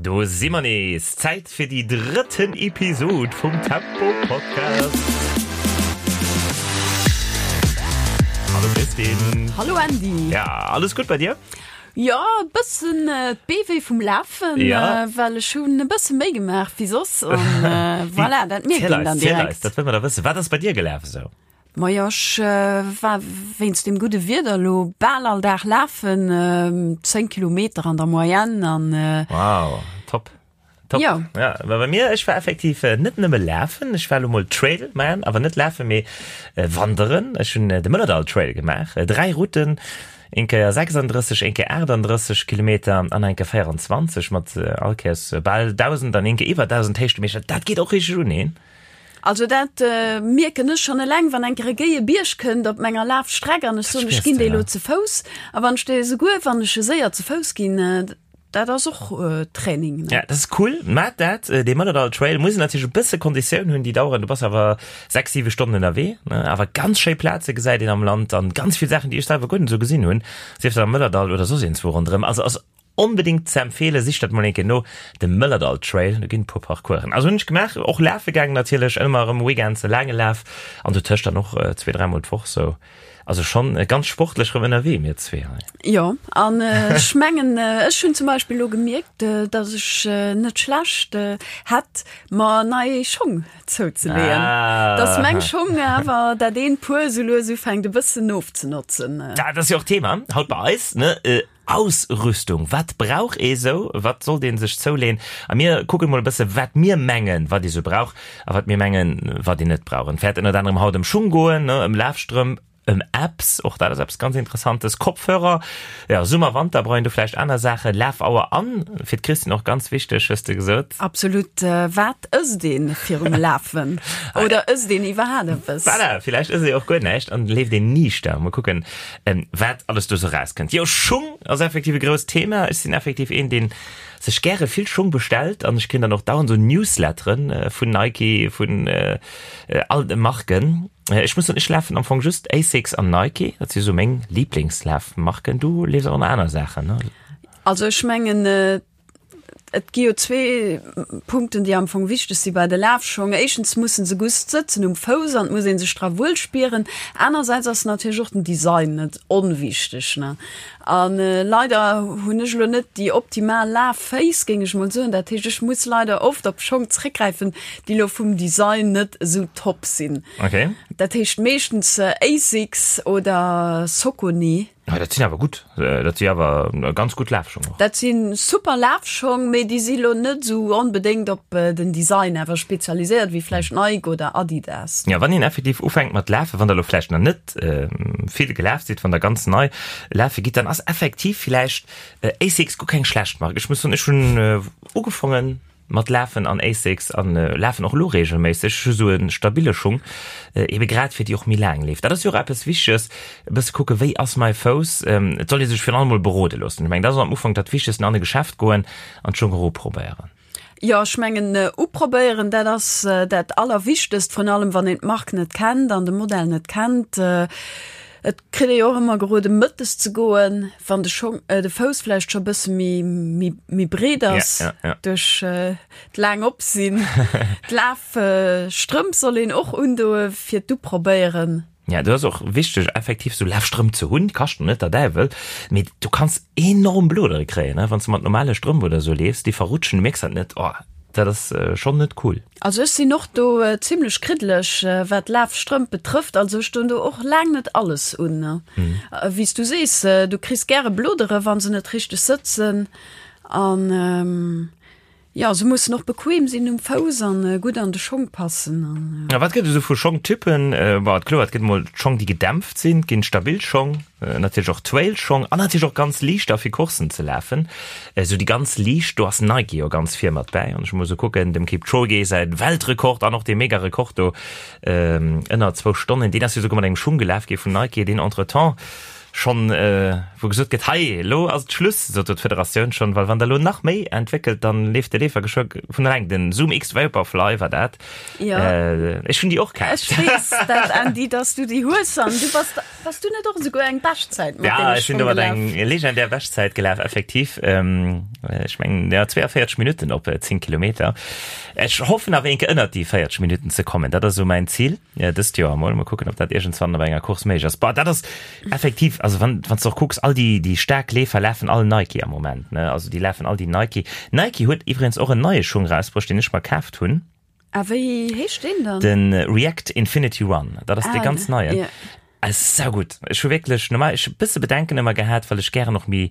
Do si mer nees! Zäit fir déi drëtten Episod vum Tempo Podcast. Hallo Christine. Hallo Andy. Ja, alles gutt bei dir? Jo, e bëssen d'Bee wéi vum Lafen, ja. well ech hunn e bësse méi gemaach wéi soss an voilà, dat mierkt een dann direkt. Dat wëll mer da wëssen. Wat ass bei dir gelaf esou? Majo, ech war wéinst dem gudde Wieder elo bal all Dag lafen, 10 Kilometer an der Moyenne an. Wow, top. Top. Jo. Ja, mä bei mir, ech war effektiv net nëmme lafen, ech war elo mol Trail man, awer net lafen, mee wanderen. Ech hunn de Mëllerdall Trail gemaach, 3 Routen, eng Kéier 36, eng Kéier 38 Kilometer an eng Kéier 24 mat all Kéiers bal 1.000 an eng Kéier iwwer 1.000 Héichtemeter. Dat geet och richteg un een. Also dat mierken ech schonn eleng, wann eng Kéier e géie Bierg kënnt op menger Lafstreck an ech soen, ech ginn dee lo ze Fouss. A wann ech dee souguer, wann ech e séier ze Fouss ginn, dat ass och Training, ne? Ja, dat ass cool. Mä dat, dee Mëllerdall Trail muss een natierlech e bësse Konditioun hunn, déi daueren, du bass awer 6, 7 Stonnen ënnerwee, ne? Awer ganz schéi Plaze gesäit een am Land an ganz vill Saachen, déi ech selwer guer net esou gesinn hunn, sief dat am Mëllerdall oder soss iergendzwou ronderëm. Also ass Onbedingt ze empfeelen, sicht dat mol eng Kéier no, de Mëllerdall Trail, do ginn e puer Parcoursen. Also hunn ech gemaach, och lafe gaangen natierlech, ëmmer erëm Weekends e laange Laf an dotëscht dann och zwee, dräimol d'Woch sou. Also schonn ganz sportlech erëm ënnerwee, mir zwee hei. Jo, an ech mengen, ech hunn zum Beispill elo gemierkt, dass ech net schlecht hätt, mer nei Schong zouzeleeën, dass meng Schong awer dat eent Puer sou lues ufänkt e bëssen ofzenotzen. Dat ass jo och d'Thema haut bei eis, ne? Ausrüstung, wat brauch ee sou, wat sollt ee sech zouleen? A mir kucken mol e bësse wat mir mengen, wat ee sou brauch a wat mir mengen, wat een net brauch. Et wäert ënnert anerem haut ëm Schung goen, ëm Lafstrëmp, ëm Apps, och dat ass eppes ganz Interessantes, Kopfhörer, jo, Summer, Wanter brauch een do vläicht aner Saachen, Lafauer an fir d'Christine och ganz wichteg, hues de gesot. Absolut, wat ësst een virum Lafen oder ësst een iwwerhaat eppes? Voilà, villäicht ësst ee och guer näischt an leeft een niichter. Mol kucken. Wat alles do sou rauskënnt. Jo, Schung ass effektiv e grousst Thema. Ech sinn effektiv een, deen sech gäre vill Schung bestellt an ech kréien dann och dauernd sou Newsletteren vun Nike, vun all de Marken. Ech muss soen, ech lafen am Fong just Asics an Nike, dat si sou meng Liblingslafmarken. Du leefs awer nach aner Saachen, ne? Also ech mengen, Et gi jo zwee Punkten, déi am Fong wichteg si bei de Lafschong. Éischtens musse se gutt sëtzen um Fouss an et muss ee sech dra wuel spieren. Anersäits ass natierlech och den Design net onwichteg, ne. A leider hunn ech elo net déi optimal Lafféiss, géing ech mol soen. Dat heescht, ech muss leider oft op Schong zréckgräifen, déi elo vum Design net esou top sinn. Okay. Dat heescht meeschtens Asics oder Saucony. Ah, dat sinn awer gutt, dat si awer ganz gutt Lafschong och. Dat si super Lafschong, mee déi si lo net esou onbedéngt op den Design awer spezialiséiert wéi vläicht Nike oder Adidas. Ja, wann een effektiv ufänkt mat lafen, wann der elo vläicht nach net vill gelaf sidd, wann der ganz nei lafe gitt, dann ass effektiv vläicht Asics guer keng schlecht Mark. Ech muss soen, ech hunn ugefongen, Mat Lafen an Asics an lafen och elo regelméisseg. Ech hu sou e stabile Schung, ebe grad fir déi och méi laang leeft. Dat ass jo och eppes Wichteges, e bësse kucke wéi ass mäi Fouss. Et soll ee sech virun allem mol berode loossen. Ech mengen dat ass am Ufank dat Wichtegsten, an e Geschäft goen an d'Schung och uprobéieren. Jo, ech mengen uprobéieren, dat ass dat Allerwichtegst, vrun allem wann een d'Mark net kennt an de Modell net kennt. Et kritt ee jo och ëmmer gerode mëttes ze goen, wann de Schong, de Fouss vläicht scho bësse méi, méi, méi breet ass Ja, ja, ja. duerch d'laang Opsinn. D'Lafstrëmp soll een och undoe fir d'Uprobéieren. Ja, do ass och wichteg effektiv sou Lafstrëmp ze hunn, kaschten net der Däiwel, mee du kanns enorm Blodere kréien, ne, wann s de mat normale Strëmp oder sou leefs, déi verrutschen, du mierks dat net, oh, dat ass schonn net cool. Also ech sinn och do zimlech kriddeleg wat Lafstrëmp betrëfft. Also ech doen do och laang net alles un. Wéi s du sees, du kriss gäre Blodere wa se net richteg sëtzen. An jo, se mussen och bequem sinn um Fouss an gutt an de Schong passen. A wat gëtt et esou vu Schongtypen? Bon, kloer, et gëtt emol d'Schong déi gedämpft sinn, et ginn stabil Schong, natierlech och Trailschong an natierlech och ganz liichter fir Courssen ze lafen. Esou déi ganz liicht, do ass Nike jo ganz vir mat bäi. An ech muss esou kucken, dem Kipchoge säi Weltrekord an och dee Mega-Rekord do ënner zwou Stonnen, deen ass jo souguer mat engem Schung gelaf gi vun Nike, deen entretemps. Schonn wou gesot gëtt, hei elo ass et Schluss, sot do d'Federatioun schonn, well wann der elo nach méi entwéckelt, dann leeft de Leefer geschwë vun eleng. Den Zoom X Vaporfly war dat. Jo. Ech hunn déi och kaf. Ech weess dat, Andy, dass du déi hues an du bass, bass du net och esouguer eng Beschtzäit mat Ja, deene ech sinn Schong domat gelaf? eng legendär Beschtzäit gelaf, effektiv. Ech mengen, ja, 42 Minutten op 10 Kilometer. Ech hoffen awer eenke ënnert déi 40 Minutten ze kommen. Dat ass esou mäin Zil dëst Joer emol. Mol kucken, ob dat iergendswann op enger Course méiglech ass. Bah, dat ass effektiv, also wann, wann s de och kucks, all déi, déi staark Leefer lafen all Nike am Moment, ne? Also déi lafen all déi Nike. Nike huet iwwregens och en neie Schung erausbruecht, deen ech mer kaaft hunn. A wéi heescht deen dann? De React Infinity Run. Dat ass dee Ah, ganz neien. ja. Ass saugutt. Ech hu wierklech normal, ech hu bësse Bedenken ëmmer gehat, well ech gären och méi,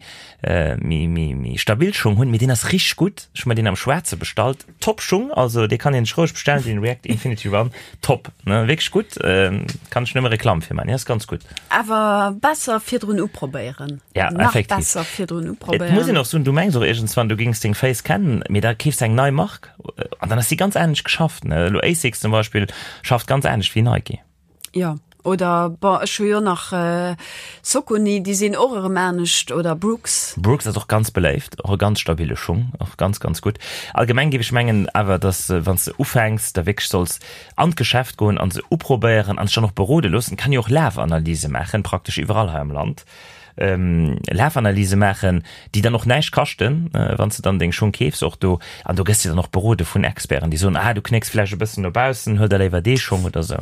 méi, méi, méi stabil Schung hunn, mee deen ass richteg gutt. Ech hu mer deen am Schwaarze bestallt. Top Schung, also dee kann een sech roueg bestellen, den React Infinity Run. Top, ne, wierklech gutt. Kann ech nëmme Reklamm fir man, deen ass ganz gutt. Awer besser virdrun uprobéieren. Ja, Nach effektiv. besser virdrun Et muss een uprobéieren. och soen, du mengs och iergendswann, du géings deng Féiss kennen, mee da keefs de eng nei Mark an dann ass déi ganz anescht geschafft, ne. Elo Asics zum Beispill schafft ganz anescht wéi Nike. Jo, oder bon, ech hu jo nach Saucony, déi sinn och erëm anescht, oder Brooks. Brooks ass och ganz beléift, och e ganz stabile Schung, och ganz, ganz gutt. Allgemeng géif ech mengen awer, dass wann s de ufänks, da wierklech solls an d'Geschäft goen an se uprobéieren an sech dann och berode loossen. Kann jo och Lafanalyse maachen, praktesch iwwerall hei am Land. Lafanalyse maachen, déi dann och näischt kaschten, wann s de dann deng Schung keefs och do. An do gëss de dann och berode vun Experten, déi soen, ah du knécks vläicht e bëssen no baussen, huel der léiwer dee Schong oder esou.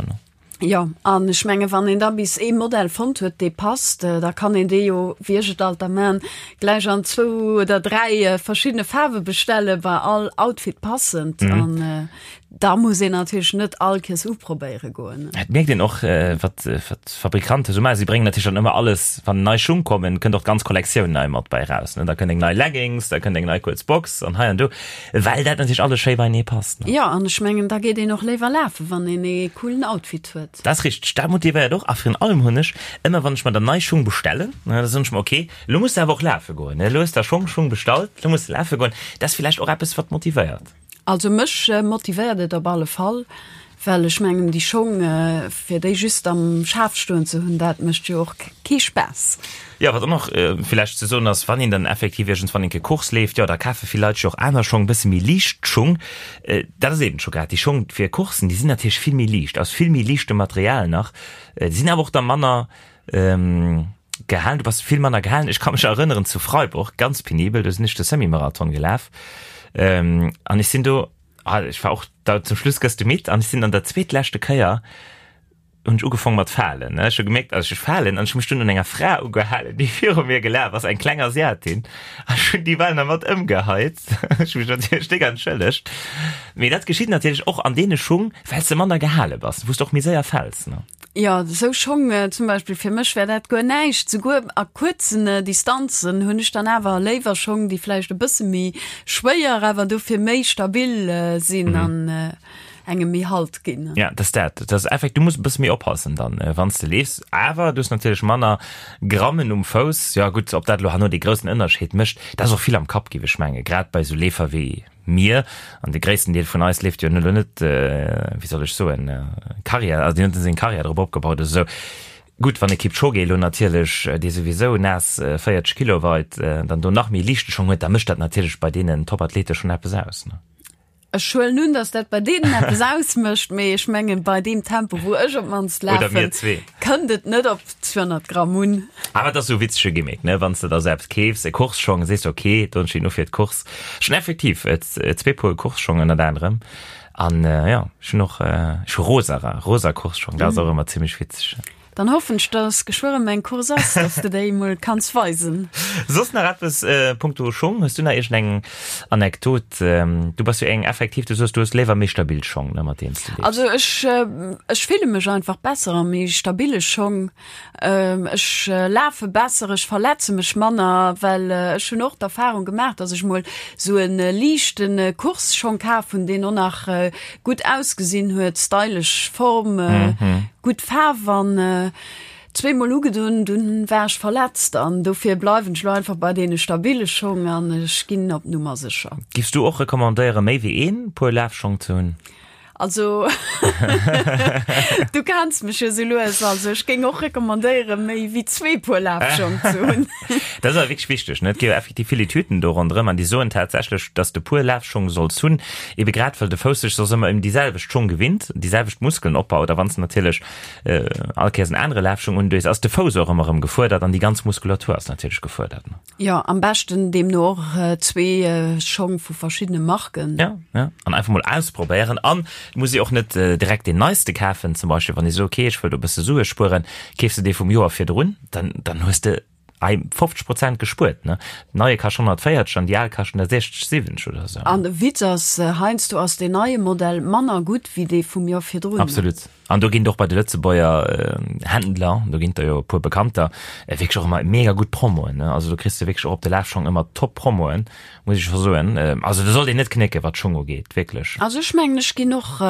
Jo, an ech menge wann een da bis ee Modell fonnt huet, dee passt, da kann een dee jo, wéi ech et alt da man, gläich an zwou oder dräi verschiddene Faarwe bestellen, bei all Outfit passend. An Da muss een natierlech net all Kees uprobéiere goen. Et mierkt een och, wat d'Fabrikanten esou maachen. Si bréngen natierlech dann ëmmer alles, wann nei Schung kommen, kënnt och d'ganz Kollektioun nei mat bei eraus. Da kënnt eng nei Leggings, da kënnt eng nei kuerz Box an hei an do, well dat natierlech alles schéi beienee passt. Jo, an ech mengen, da geet een och léiwer lafen, wann een ee coolen Outfit huet. Dat ass richteg, dat motivéiert och. A virun allem hunn ech ëmmer, wann ech mer dann nei Schung bestellen, da soen ech mer, ok, elo muss de awer och lafe goen, elo hues de der Schong Schung bestallt, elo muss de lafe goen. Dat ass villäicht och eppes, wat motivéiert. Also mech motivéiert et op alle Fall, well ech mengen déi Schong fir déi just am Schaf stoen ze hunn, dat mécht jo och kee Spaass. Jo, wat och nach villäicht ze soen ass, wann een dann effektiv iergendswann eng Kéier Course leeft, jo da kafe vill Leit sech och aner Schong, bësse méi liicht Schung. Dat ass eben scho grad déi Schong fir Coursen, déi sinn natierlech vill méi liicht, aus vill méi liichtem Material nach, déi sinn awer och da manner gehalen, du bass vill manner gehalen. Ech ka mech erënneren zu Freiburg, ganz penibel, do sinn ech de Semi-Marathon gelaf ähm, an ech sinn do, ah, ech war och da zum Schluss gëss du midd an ech sinn an der zweetleschte Kéier hunn ech ugefong mat falen, ne. Ech hu gemierkt, also ech falen an ech hu mech dunn un enger Fra ugehalen, déi viru mir gelaf ass, eng kleng Asiatin, an ech hunn déi bal nach mat ëmgeheit. Ech hu mech natierlech déck entschëllegt. Mee dat geschitt natierlech och an deene Schung, well s de manner gehale bass, wou s de och méi séier fäls, ne. Jo, esou Schong zum Beispill, fir mech wär dat guer näischt. Souguer a kuerzen Distanzen hunn ech dann awer léiwer Schong, déi vläicht e bësse méi schwéier, awer dofir méi stabil sinn an engem méi Halt ginn. Ja, dat ass dat. Dat ass effekt, du muss e bësse méi oppassen dann, wann s de leefs. Awer du hues natierlech manner Grammen um Fouss. Jo gutt, ob dat elo herno dee groussen Ënnerscheed mécht, dat ass och vill am Kapp, géif ech mengen, grad bei esou Leefer wéi Mir, an de gréissten Deel vun eis leeft jo elo net, wéi soll ech soen, Karriär, also deen huet net seng Karriär drop opgebaut oder esou. Gutt, wann e Kipchoge elo natierlech, dee souwisou naass 40 Kilo weit, dann do nach méi liichte Schong huet, da mécht dat natierlech bei deenen Topathlete schonn eppes aus, ne? Ech huelen un, datt dat bei deenen eppes ausmécht, mee ech mengen, bei deem Tempo, wou ech op d'mannst lafen, kënnt et net op 200 Gramm un. Awer et ass esou e witzege Gimmick, ne? Wann s de der esou eppes keefs, e Course-Schong, sees de, ok, do hunn ech déi no fir d'Course. Ech hunn effektiv zwee Puer Course-Schong ënnert anerem. An jo, ech hunn och, ech hu rosa, rosa Course-Schong, dat ass och ëmmer zimmlech witzeg. Dann hoffen ech, dass geschwë rëm eng Course ass, dass de déi emol kanns weisen. Soss nach eppes punkto Schong? Hues du nach iergendeng Anekdot? Du bass jo eng effektiv, du soos, du hues léiwer méi stabil Schong, ne, mat deenen s de leefs. Also ech, ech fille mech einfach besser a méi stabile Schong. Ech lafe besser, ech verletze mech manner, well ech hunn och d'Erfahrung gemaach, dass ech mol sou e liichte Course-Schong kaf hunn, deen och nach gutt ausgesinn huet, stylesch Form, gutt Faarf an zweemol ugedunn, dunn war ech verletzt an dofir bleiwen ech lo einfach bei deene stabile Schong an ech ginn op Nummer sécher. Giffs du och recommandéieren, méi wéi een Puer Lafschong ze hunn? Also du kenns mech jo sou lues, also ech géing och recommandéieren, méi wéi zwee Puer Lafschong ze hunn. Dat ass awer wierklech wichteg, ne? Et gi jo effektiv vill Etüden do ronderëm an déi soen tatsächlech, dass de Puer Lafschong solls hunn, ebe grad well de Fouss sech soss ëmmer ëm déi selwecht Schong gewinnt, déi selwecht Muskelen opbaut a wann s de natierlech all Kéiers en anere Lafschong undues, ass de Fouss och ëmmer erëm gefuerdert an déi ganz Muskulatur ass natierlech gefuerdert, ne? Jo, am beschten deemno och zwee Schong vu verschiddene Marken. Ja, ja. An einfach mol ausprobéieren. An et muss ee och net direkt deen neiste kafen. Zum Beispill wann ee sot, okay, ech wëll do e bësse Sue spueren, keefs de dee vum Joer virdrun, dann, dann hues de ei 50 Prozent gespuert, ne? Den neie kascht 140 an déi al kaschten der 60, 70 oder esou. An de Witz ass, heiansdo ass deen neie Modell manner gutt wéi dee vum Joer virdrun. Absolut. An do ginn et och bei de Lëtzebuerger Händler, do ginn et der jo e puer bekannter, wierklech och ëmmer mega gutt Promoen. Also do kriss de wierklech och op de Lafschong ëmmer top Promoen, muss ech scho soen. Also do sollt een net knécken, wat d'Schong ugeet, wierklech. Also ech mengen, ech ginn och,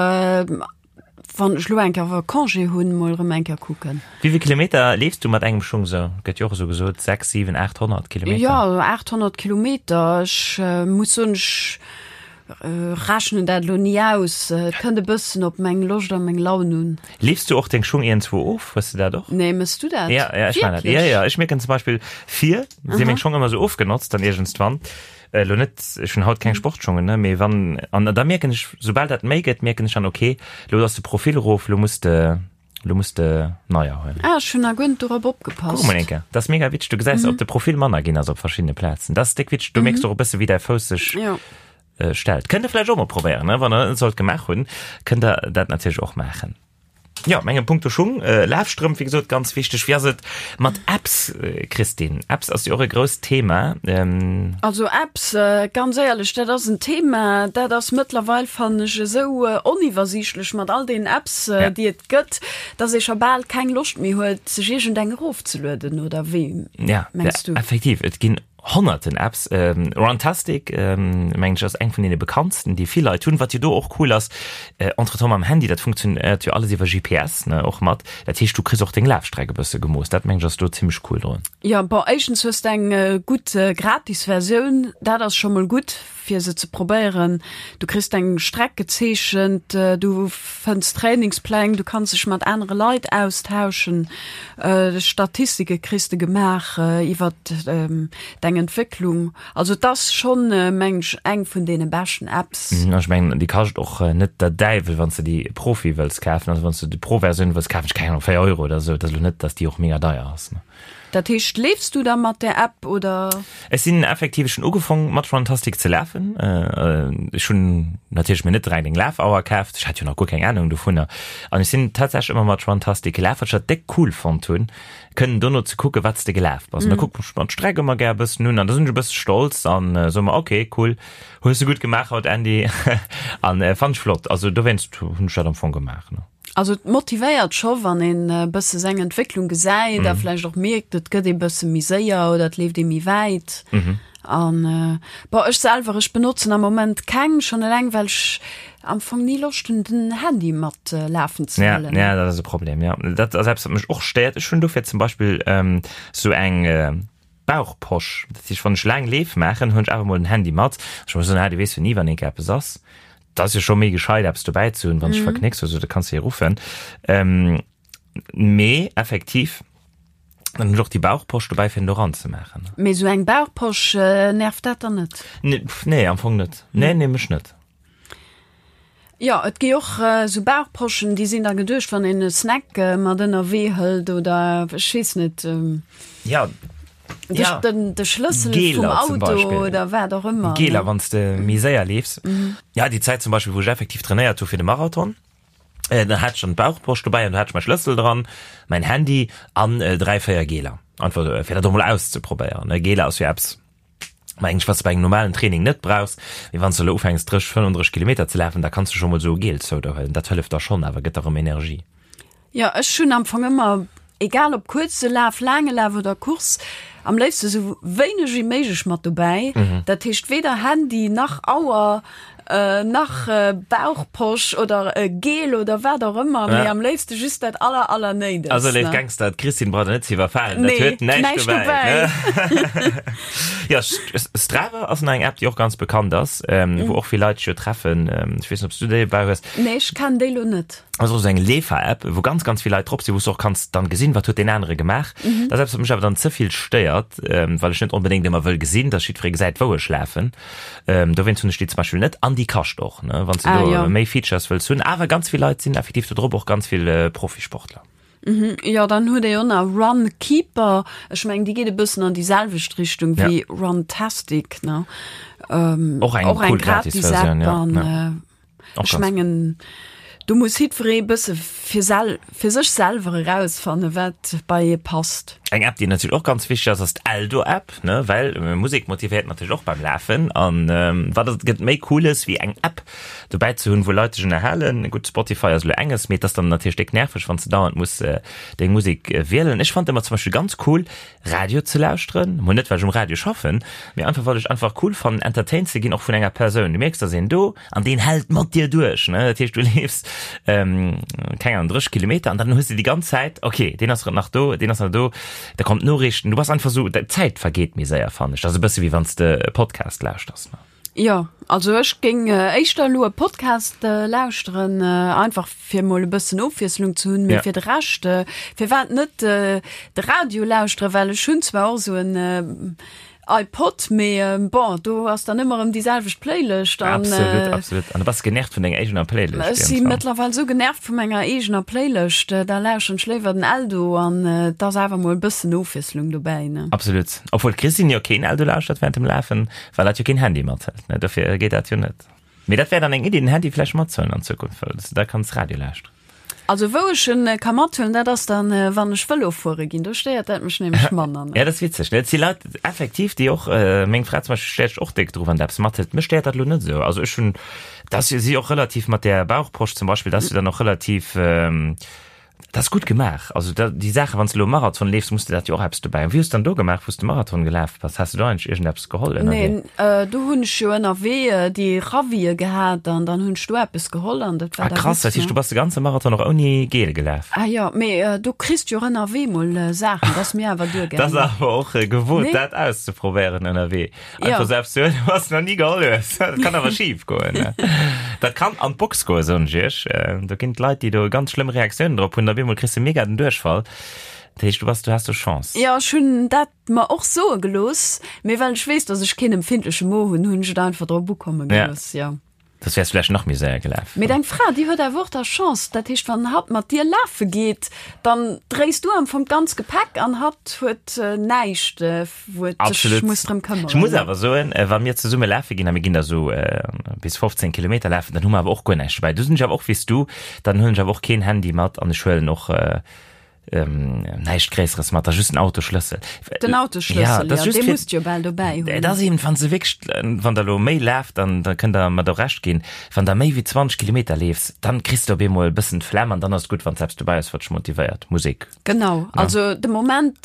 wann ech elo eng Kéier Congé hunn, mol erëm eng Kéier kucken. Wéi vill Kilometer leefs du mat engem Schung sou? Gëtt jo och esou gesot, 6, 7, 800 Kilometer. Jo, 800 Kilometer. Ech muss soen, ech Rechnen dat elo ni aus. Et kënnt e bëssen op meng Loscht a meng Laun un. Leefs du och deng Schung iergendzwou of? Hues de dat och? Nee, mëss du dat? Ja, ja, ech man dat. Ja, ja, ech mierken zum Beispill vir si meng Schong ëmmer sou ofgenotzt dann iergendswann. Elo net, ech hunn haut keng Sportschongen, ne, mee wann, an da mierken ech, soubal dat méi gëtt, mierken ech dann, okay, elo ass de Profil erof, elo muss de, elo muss de neier huelen. Ah, ech hunn nach guer net dorop opgepasst. Kuck mol eng Kéier, dat ass mega witzeg, du gesäis, ob de Profil manner ginn ass op verschiddene Plazen. Dat ass déck witzeg, do mierks du och e bësse wéi däi Fouss sech Jo. stellt. Kënnt der vläicht och mol probéieren, ne? Wann der dat net sollt gemaach hunn, kënnt der dat natierlech och maachen. Jo, mengem Punkto Schung, Lafstrëmp, wéi gesot, ganz wichteg. Wéi ass et mat Apps, Christine? Apps ass jo och e grousst Thema. Also Apps, ganz éierlech, dat ass en Thema, dat ass mëttlerweil, fannen ech, esou oniwwersiichtlech mat all deenen Apps, déi et gëtt, dass ee scho bal keng Loscht méi huet, sech iergendeng erofzelueden, oder wéi mengs du? Ja, effektiv, et ginn honnerten Apps. Runtastic, mengen ech, ass eng vun deene bekanntsten, déi vill Leit hunn. Wat jo do och cool ass, entretemps mam Handy, dat funktionéiert jo alles iwwer GPS, ne, och mat. Dat heescht, du kriss och deng Lafstreck e bësse gemooss. Dat mengen ech ass do zimmlech cool drun. Jo, bon, éischtens hues de eng gutt gratis Versioun, dat ass scho mol gutt. fir se ze probéieren. Du kriss deng Streck gezeechent, du fënns Trainingspläng, du kanns dech mat anere Leit austauschen, Statistike kriss de gemaach iwwer deng Entwécklung. Also et ass schonn, mengen ech, eng vun deene beschten Apps. Ech mengen, déi kascht och net der Däiwel, wann s de déi Profi wëlls kafen. Also wann s de déi Pro-Versioun wëlls kafen, ech keng Ahnung, 4 Euro oder esou. Et ass elo net, datt déi och mega deier ass. Dat heescht, leefs du da mat där App oder? Ech sinn effektiv, ech hunn ugefong mat Runtastic ze lafen. Ech hunn natierlech mir net direkt eng Lafauer kaaft, ech hat jo nach guer keng Ahnung dovunner. An ech sinn tatsächlech ëmmer mat Runtastic gelaf, wat ech dat déck cool fonnt hunn, kënnen dono ze kucken, wat s de gelaf bass. An da kucken ech mer d'Streck ëmmer gär e bëssen un an da sinn ech e bësse stolz an soe mer, ok, cool, hues de gutt gemaach haut, Andy. An fannen ech flott. Also dowéinst hunn ech dat am Fong gemaach, ne. Also et motivéiert scho wann een e bësse seng Entwécklung gesäit a vläicht och mierkt, et gëtt ee bësse méi séier oder et leeft ee méi wäit. An bon, ech selwer, ech benotzen am Moment keng, schonn eleng well ech am Fong ni Loscht hunn den Handy mat lafen ze Ja, huelen. ja, dat ass e Problem, ja. Dat ass eppes, wat mech och stéiert. Ech hunn dofir zum Beispill sou eng Bauchposch. Dat heescht, wann ech laang Leef maachen, hunn ech awer mol den Handy mat. Ech muss soen, ah, du weess jo ni, wann eenke eppes ass. Dat ass jo scho méi gescheit, eppes dobäi ze hunn, wann s de verknécks oder sou, da kanns de jo ruffen. Mee effektiv, dann hunn ech och déi Bauchposch dobäi, fir en do ranzemaachen. Mee sou eng Bauchposch, nervt dat dann net? Nee, am Fong net. Nee, nee, mech net. Jo, et gi och sou Bauchposchen, déi sinn da geduecht, wann een e Snack mat ënnerwee hëlt oder ech weess net. Ja. De, ja. den, de Schlëssel vum Auto oder wat och ëmmer. Geler, wann s de méi séier leefs. Mhm. Ja, déi Zäit zum Beispill, wou ech effektiv trainéiert hu fir de Marathon, äh, dann hat ech dann d'Bauchposch dobäi an do hat ech mäi Schlëssel dran, mäin Handy an äh, dräi, véier Geler. Einfach äh, fir dat och mol auszeprobéieren. Ne? Geler ass jo eppes, mengen ech, wat s de bei engem normalen Training net brauchs. Mee wann s de elo ufänks 30, 35 Kilometer ze lafen, da kanns du scho mol esou e Gel zou der huelen. Dat hëlleft da schonn awer, gëtt der erëm Energie. Jo, ech hunn am Fong ëmmer, egal ob kuerze Laf, laange Laf oder Course, am léifste sou wéineg wéi méiglech mat dobäi. Dat heescht weder Handy nach Auer. Nach Bauchposch oder e Gel oder wat och ëmmer, mee am léifste just dat aller aller néidegst. Also léif Gangster, d'Christine braucht der net ze iwwerfalen, dat huet näischt dobäi. Jo, Strava ass nach eng App, déi och ganz bekannt ass, wou och vill Leit sech jo treffen. Ech weess net, ob s du déi dobäi hues. Nee, ech kennen déi lo net. Ass och esou eng Leefer-App, wou ganz, ganz vill Leit drop sinn, wou s du och kanns dann gesinn, wat huet deen anere gemaach. Dat ass eppes, wat mech awer dann ze vill stéiert, well ech net onbedéngt ëmmer wëll gesinn, dass jiddweree gesäit, wou ech lafen. Dowéinst hunn ech déi zum Beispill net. An déi kascht och, ne, wann s du Ah, do jo. méi Features wëlls hunn. Awer ganz vill Leit sinn effektiv do drop, och ganz vill Profisportler. Jo, dann huet ee jo nach Runkeeper. Ech mengen, déi geet e bëssen an déi selwecht Richtung Ja. wéi Runtastic, ne? Och eng Och eng cool Gratis-App Gratis-Versioun, ja. an Ja. äh, ech mengen, do muss jiddweree e bësse fir sel fir sech selwer erausfanne wat bei ee passt. Eng App, déi natierlech och ganz wichteg ass, ass d'Eldo-App, ne, well Musek motivéiert natierlech och beim Lafen. An wat et gëtt méi Cooles wéi eng App dobäi ze hunn, wou Leit dech ënnerhalen. Gutt, Spotify ass elo enges, mee et ass dann natierlech déck nerveg, wann s de dauernd muss deng Musek wielen. Ech fannen et ëmmer zum Beispill ganz cool, Radio ze lauschteren, mol net well ech um Radio schaffen, mee einfach well ech einfach cool fannen entertained ze ginn och vun enger Persoun. Du mierks dass een do an deen hält mat dir duerch, ne, dat heescht du leefs keng Ahnung 30 Kilometer an dann hues de déi ganz Zäit ok deen ass nach do, deen ass nach do, da kommt Noriichten, du bass einfach sou, d'Zäit vergeet méi séier fannen ech, dat ass e bësse wéi wann s de e Podcast lauschters, ne. Jo, also ech géing éischter elo e Podcast lauschteren, einfach fir mol e bëssen Ofwiesslung ze hunn, mee fir de Rescht, firwat net de Radio lauschteren, well ech hunn zwar och esou en iPod, mee bon, do ass dann ëmmer erëm déi selwecht Playlëscht an. Absolut, absolut. An du bass genervt vun denger eegener Playlëscht. Ech si mëttlerweil esou genervt vu menger eegener Playlëscht, da lauschteren ech léiwer den Eldo an et ass awer mol e bëssen Ofwiesslung dobäi, ne. Absolut. Obwuel d'Christine jo keen Eldo lauschtert während dem Lafen. Well dat jo keen Handy mathëlt, ne? Dofir geet dat jo net. Mee dat wär dann eng Iddi, den Handy vläicht matzehuelen an Zukunft, well s de da kanns Radio lauschteren. Also wou ech en ka mathuelen, dat ass dann, wann ech Vëlo fuere ginn. Do stéiert dat mech nämlech manner, ne? Ja, dat ass witzeg, ne? Et si Leit effektiv, déi och, meng Fra zum Beispill stéiert sech och déck dru wann der eppes mathëlt. Mech stéiert dat elo net esou. Also ech hunn, dat ass jo si och relativ mat där Bauchposch zum Beispill, dat ass jo dann och relativ, Dat ass gutt gemaach. Also da, déi Saachen, wann s de elo Marathon leefs, muss de dat jo och eppes dobäi hunn. Wéi hues de dann do gemaach, wou s de Marathon gelaf bass? Has de do eigentlech iergendeppes geholl ënnerwee? Nee, do hunn ech jo ënnerwee déi Ravie gehat an dann hunn ech do eppes geholl an dat war Ah da krass, gutt, dat heescht, ne? du bass de ganze Marathon och ouni Gel gelaf? Ah jo, mee do kriss de jo och ënnerwee mol Saachen, dat ass mir awer Dat duergaangen. ass awer och gewot, Nee? dat auszeprobéieren ënnerwee. Ja. Einfach selbst huelen, was du noch nie geholl hues. Dat kann awer schief goen. Ne? Dat kann an d'Box goen, soen ech iech. Äh, Do ginn d'Leit, déi do ganz schlëmm Reaktiounen drop hunn, da bemol kriss de mega den Duerchfall. Dat heescht, du bass, du has do Chance. Ja, ech hunn dat mer och soe gelooss, mee well ech weess, dass ech keen empfindleche Mo hunn, hunn ech et einfach drop ukomme Ja. gelooss, ja. Soss wärs du vläicht nach méi séier gelaf. Mee deng Fra, déi huet awer och da Chance. Dat heescht, wann hatt mat dir lafe geet, dann dréis du am Fong d'ganz Gepäck an hatt huet näischt, wou et sech muss drëm këmmeren. Ech muss awer soen, wa mir zesumme lafe ginn, a mir ginn da sou bis 15 Kilometer lafen, dann hu mer awer och guer näischt dobäi. Do sinn ech awer och wéi s du, dann huelen ech awer och keen Handy mat an ech huelen och Näischt Gréisseres mat, da just den Autoschlëssel. Den Autoschlëssel, ja, dat ja, dee musst jo bal dobäi hunn. Et ass eben, wann se wierklech, wann der elo méi laaft, dann da kënnt der mer do Recht ginn, wann der méi wéi 20 Kilometer leefs, dann kriss de op eemol e bëssen d'Flemm an dann ass et gutt, wann s eppes dobäi hues, wat dech motivéiert, Musek. Genau, also de Moment,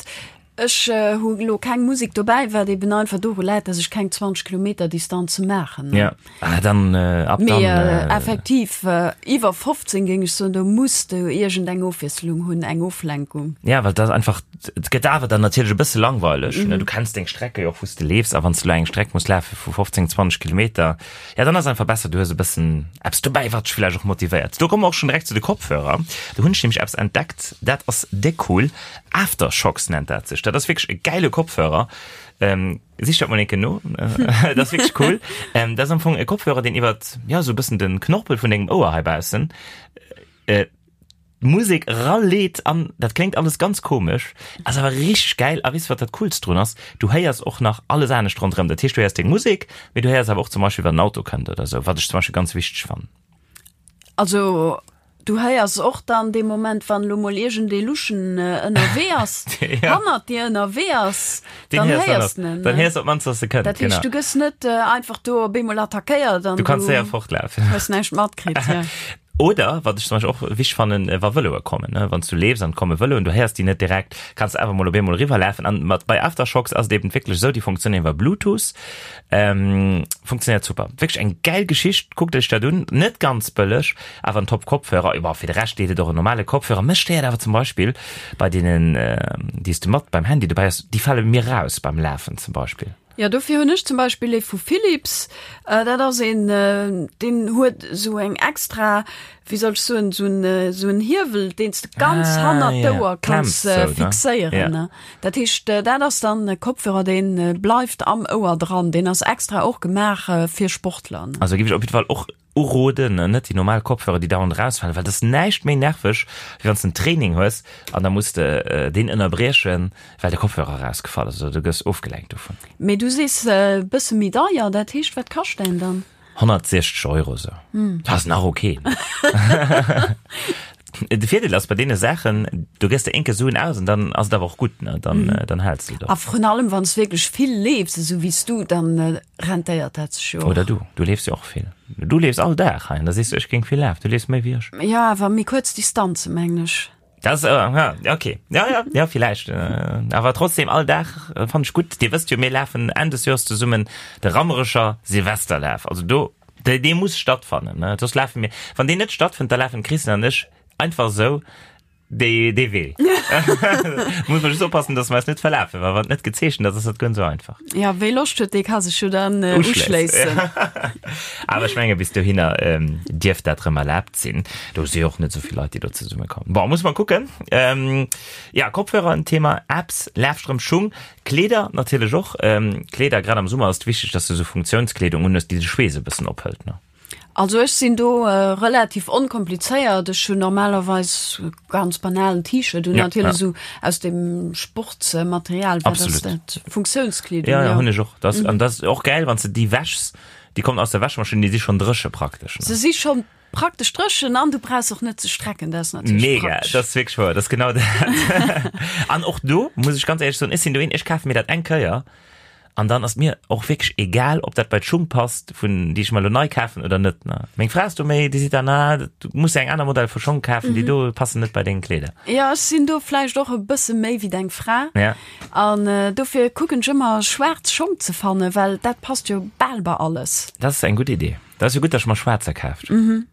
ech hu elo keng Musek dobäi, wat eben einfach doru läit, dass ech keng 20 Kilometer Distanze maachen. Ja, ah, dann ab dann. Mee effektiv, iwwer 15 géing ech soen, do muss de iergend eng Ofwiesslung hunn, eng Oflenkung. Ja, well dat einfach, et gëtt awer dann natierlech e bësse langweileg, ne? Du kenns deng Strecke jo och, wou s de leefs, a wann s de elo eng Streck muss lafe vu 15, 20 Kilometer, ja, dann ass einfach besser, du hues e bëssen eppes dobäi, wat dech vläicht och motivéiert. Do komme mer och schonn direkt zu de Kopfhörer. Do hunn ech nämlech eppes entdeckt, dat ass déck cool. Aftershocks nennt dat sech. Dat ass wierklech e gäile Kopfhörer. Ähm, sich dat mol enke no. Dat ass wierklech cool. Ähm, dat ass am Fong e Kopfhörer, deen iwwert, ja, sou e bëssen den Knorpel vun dengem Ouer heibaussen, äh, d'Musek raleet an dat kléngt alles ganz komesch, ass awer richteg gäil. A weess wat dat Coolst drun ass? Du héiers och nach alles anescht ronderëm. Dat heescht, du héiers deng Musek, mee du héiers awer och zum Beispill, wann en Auto kënnt oder sou, wat ech zum Beispill ganz wichteg fannen. Also du héiers och dann dee Moment, wann elo mol iergendee Luschen ënnerwee ass, Ja. hannert dir ënnerwee ass, Deen dann héiers dann héiers och. de en. Dann héiers de op d'mannst, dass e kënnt, Dat heescht, genau. du gëss net einfach do op eemol attackéiert an Du kanns du séier fortlafen. hues näischt matkritt, ja. Oder, wat ech zum Beispill och wichteg fannen, wa Vëloe kommen, ne, wann s du leefs an et komme Vëloen, du héiers déi net direkt, kanns de awer mol op eemol eriwwerlafen. An mat bei Aftershokz ass et eben wierklech esou, déi funktionéieren iwwer Bluetooth, ähm, funktionéiert super. Wierklech eng gäil Geschicht, kuckt iech dat un, net ganz bëlleg, awer en top Kopfhörer. Jo, fir de Rescht deet et och en normale Kopfhörer. Mech stéiert awer zum Beispill bei deenen, déi s de mat beim Handy dobäi hues, déi fale mir raus beim Lafen zum Beispill. Jo, dofir hunn ech zum Beispill ee vu Philips. Dat ass een, deen huet esou eng extra, wéi soll ech soen, esou en, esou en Hiewel, deen s de ganz Ah, hannert ja. d'Ouer Klemms kanns sou, ne? fixéieren. Ja. Dat heescht, dat ass dann e Kopfhörer, dee bleift am Ouer dran. Deen ass extra och gemaach fir Sportler. Also géif ech op jidde Fall och Uroden, net déi normal Kopfhörer, déi dauernd erausfalen, well dat ass näischt méi nerveg, wéi wann s de en Training hues an da muss de deen ënnerbriechen, well de Kopfhörer erausgefall ass oder du gëss ofgelenkt dovun. Mee du sees e bësse méi deier, dat heescht, wat kascht däin dann? 160 Euro sou. Dat ass nach ok. De Virdeel ass bei deene Saachen, du gëss der eenke Suen aus an dann ass et awer och gutt, ne, dann, dann häls de et och. A vrun allem, wann s wierklech vill leefs, esou wéi s du, dann rentéiert dat sech jo och. Oder du, du leefs jo och vill. Du leefs all Dag hei an da sees du, ech géing vill lafen. Du leefs méi wéi ech. Jo, awer méi kuerz Distanze mengen ech. Dat ass, ja, okay. Ja, ja, ja, villäicht. Awer trotzdem, all Dag fannen ech gutt. Dir wësst jo, mir lafen Enn des Joers zesummen de Rammerecher Silvesterlaf. Also do, dee muss stattfannen, ne? Soss lafe mir, wann deen net stattfënnt, da lafen d'Christine an ech einfach esou dee, dee Wee. Muss mer just oppassen, dass mer eis net verlafen, well wann et net gezeechent ass, ass dat guer net esou einfach. Ja, wéi Loscht huet, dee ka sech jo dann uschléissen. Awer ech menge bis dohinner dierft dat rëm erlaabt sinn. Do si jo och net esou vill Leit, déi do zesummekommen. Bon, muss mer kucken. Ja, Kopfhörer en Thema, Apps, Lafstrëmp, Schung, Kleeder natierlech och. Kleeder, grad am Summer ass et wichteg, dass du esou Funktiounskleedung unhues, déi de Schweess e bëssen ophëlt, ne? Also ech sinn do relativ onkomplizéiert. Ech hunn normalerweis e ganz banalen T-Shirt un, natierlech esou aus dem Sportsmaterial, wat ass dat? Funktiounskleedung, jo. Ja, hunn ech och. Dat, an dat ass och gäil, wann s de déi wäschs, déi kommen aus der Wäschmaschinn, déi si schonn dréche praktesch, ne? Se si schonn praktesch dréchen an du brauchs och net ze strecken, dat ass natierlech Mega, praktesch. dat ass wierklech wouer, dat ass genau dat. An och do muss ech ganz éierlech soen, ech sinn do een, ech kafe mir dat eng Kéier an dann ass mir och wierklech egal, ob dat bei d'Schung passt, vun déi ech mer elo nei kafen oder net. Ne? Meng Fra ass do méi, déi seet dann, ah, du muss eng aner Modell vu Schong kafen, déi do passen net bei deng Kleeder. Jo, ech sinn do vläicht och e bësse méi wéi deng Fra. Ja. An dofir kucken ech ëmmer schwaarz Schong ze fannen, well dat passt jo bal bei alles. Dat ass eng gutt Idee. Dat ass jo gutt, dass ech mer schwaarzer kaaft hunn.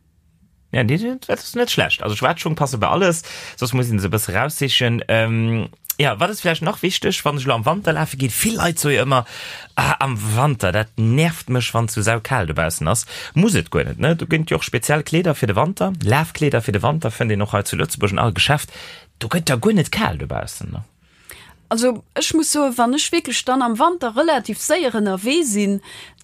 Ja, déi, dat ass net schlecht. Also schwaarz Schung passe bei alles, soss muss een se e bësse raussichen. Ähm, ja, wat ass vläicht nach wichteg, wann ech elo am Wanter lafe ginn? Vill Leit soe jo ëmmer, ah, am Wanter, dat nervt mech, wann et sou saukal dobaussen ass. Muss et guer net, ne? Do gënnt jo och speziell Kleeder fir de Wanter. Lafkleeder fir de Wanter fënnt een och hei zu Lëtzebuerg an all Geschäft. Do gëtt da guer net kal dobaussen, ne? Also ech muss soen, wann ech wierklech dann am Wanter relativ séier ënnerwee sinn,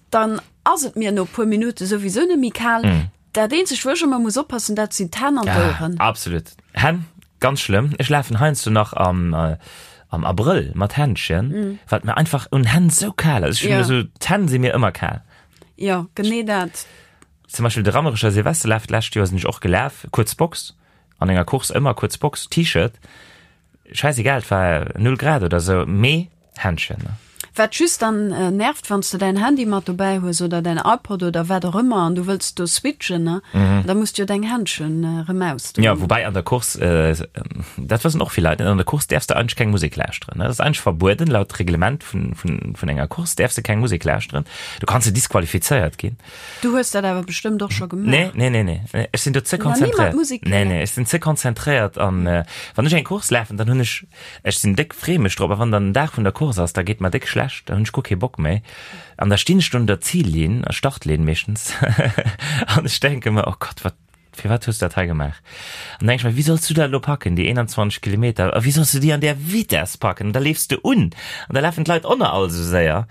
dann ass et mir no e puer Minutte souwisou net méi kal. Dat eenzegt wou ech ëmmer muss oppassen, dat sinn d'Hänn an d'Oueren. Ah, absolut. Hänn, ganz schlëmm. Ech lafen heiansdo nach am, am Abrëll mat Händschen, well et mir einfach un Hänn sou kal ass. Ech hunn esou, d'Hänn si mir ëmmer kal. Jo, genee dat. Zum Beispill de Rammerecher Silvesterlaf d'lescht Joer sinn ech och gelaf, kuerz Box, an enger Course ëmmer kuerz Box, T-Shirt. Scheißegal, et war 0 Grad oder sou, mee Händchen, ne? Wat just dann nervt, wanns de däin Handy mat dobäi hues oder däin iPod oder wat och ëmmer an du wëlls do switchen, ne, da muss de jo deng Händchen erëm ausdoen. Jo, woubäi an der Course, dat wëssen och vill Leit net, an der Course däerfs de eigentlech keng Musek lauschteren, ne? Dat ass eigentlech verbueden, laut Reglement vun, vun, vun enger Course däerfs de keng Musek lauschteren, du kanns de disqualifizéiert ginn. Du hues dat awer bestëmmt och scho gemaach. Nee, nee, nee, nee. Ech sinn do ze konzentréiert. Nee, nee, ech sinn ze konzentréiert an äh, wann ech eng Course lafen, dann hunn ech, ech sinn déck, free mech drop, a wann dann den Dag vun der Course ass, da geet mer déck schlecht, da hunn ech guer kee Bock méi. An da stinn ech do un der Zillinn, Startlinn meeschtens, an ech denke mer, oh Gott, wat, firwat hues du dat hei gemaach? An denke ech mer, wéi solls du dat elo packen, déi 21 Kilometer, a wéi solls du déi an där Vitess packen? An da leefs de un an da lafen d'Leit och nach all esou séier.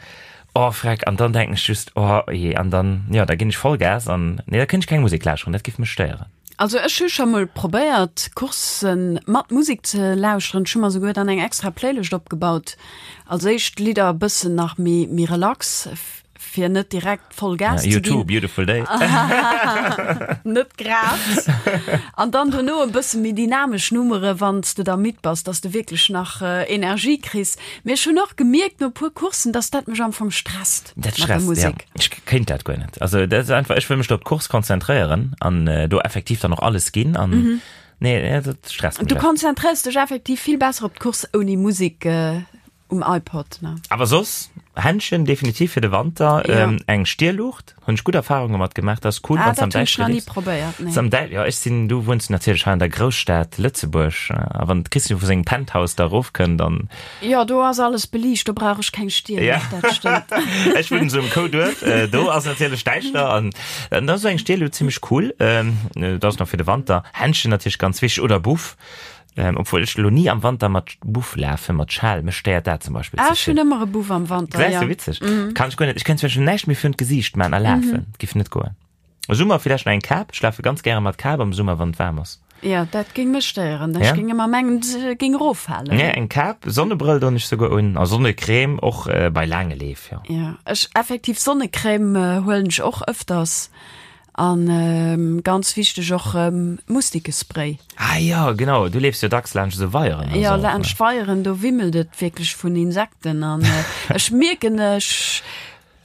Oh freck, an dann denken ech just, oh jee, an dann, jo, da ginn ech Vollgas an, nee, da kënnt ech keng Musek lauschteren, dat giff mech stéieren. Also ech hu scho mol probéiert Courssen mat Musek ze lauschteren, ech hu mer souguer dann eng extra Playlëscht opgebaut, als éischt Lidder e bëssen nach méi méi relax. Fir net direkt voll Gas ze ginn. U2, Beautiful Day. Net grad. An dann dono e bësse méi dynamesch Nummere wann s de da midd bass, dass de wierklech nach Energie kriss. Mee ech hunn och gemierkt no e puer Courssen, dass dat mech am Fong stresst Dat mat der stresst, ja. Musek. Ech kéint dat guer net. Also dat ass einfach, ech wëll mech do op d'Course konzentréieren an do effektiv dann och alles ginn an nee, dat stresst mech. Du konzentréiers dech effektiv vill besser op d'Course ouni Musek. Um iPod, ne? Awer soss, Händchen definitiv fir de Wanter, ja. ähm, eng Stierluucht, hunn ech gutt Erfahrunge mat gemaach, dat ass cool, ah, wann am Däischteren liefs. Probéiert, nee. Am Däi ja, ech sinn, du wunns natierlech hei an der Grousstad Lëtzebuerg, a wann d'Christine vu sengem Penthouse da erofkënnt, dann. Jo, do ass alles beliicht, do brauch ech keng Stierluucht, ja. dat stëmmt. Ech wunnen esou um Kouduerf, äh, do ass natierlech däischter an dann ass esou eng Stierluucht zimmlech cool, ähm, dat ass nach fir de Wanter. Händchen natierlech ganz wichteg oder Buff. Ähm, obwuel ech lo ni am Wanter mat Buff lafen, mat Schal, mech stéiert dat zum Beispill Ah, ech hunn ëmmer e Buff am Wanter, Gesäis du, witzeg. Mm. Kann ech guer net. Ech kéint zum Beispill näischt méi virun d'Gesiicht man a lafen. Mm. Giff net goen. Summer villäicht nach eng Kap. Ech lafe ganz gäre mat Kap am Summer, wann et waarm ass. Ja, dat géing mech stéieren. Ech ja? géing ëmmer mengen, se géing eroffalen. Ja, eng Kap, Sonnebrëll doen ech souguer un a Sonnecrème och äh, bei laange Leef, ja. Ja, ech effektiv Sonnecrème äh, huelen ech och ëfters. An ganz wichteg och Mustikespray. Ah jo, genau, du leefs jo dacks laanscht esou Weieren a sou. Jo, laanscht Weieren, do wimmelt et wierklech vun Insekten an ech mierken, ech,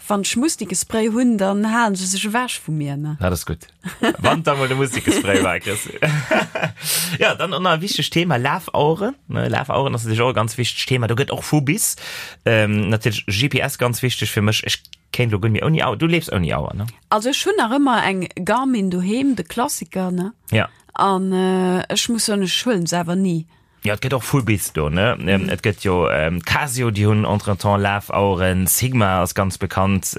wann ech Mustikespray hunn, dann halen se sech ewech vu mir, ne. Dat ass gutt. Wann da mol de Mustikespray war, Christine. Jo, dann och nach e wichtegt Thema, Lafaueren, ne? Lafaueren ass natierlech och e ganz wichtegt Thema. Do gëtt och vu bis. Natierlech GPS ganz wichteg fir mech. Ech kéint elo guer net méi ouni Auer. Du leefs ouni Auer, ne? Also ech hunn nach ëmmer eng Garmin doheem, de Klassiker, ne? Ja. An ech muss soen, ech huelen se awer ni. Jo, et gëtt och vu bis do, ne? Et gëtt jo Casio, déi hunn entretemps Lafaueren, Sigma ass ganz bekannt,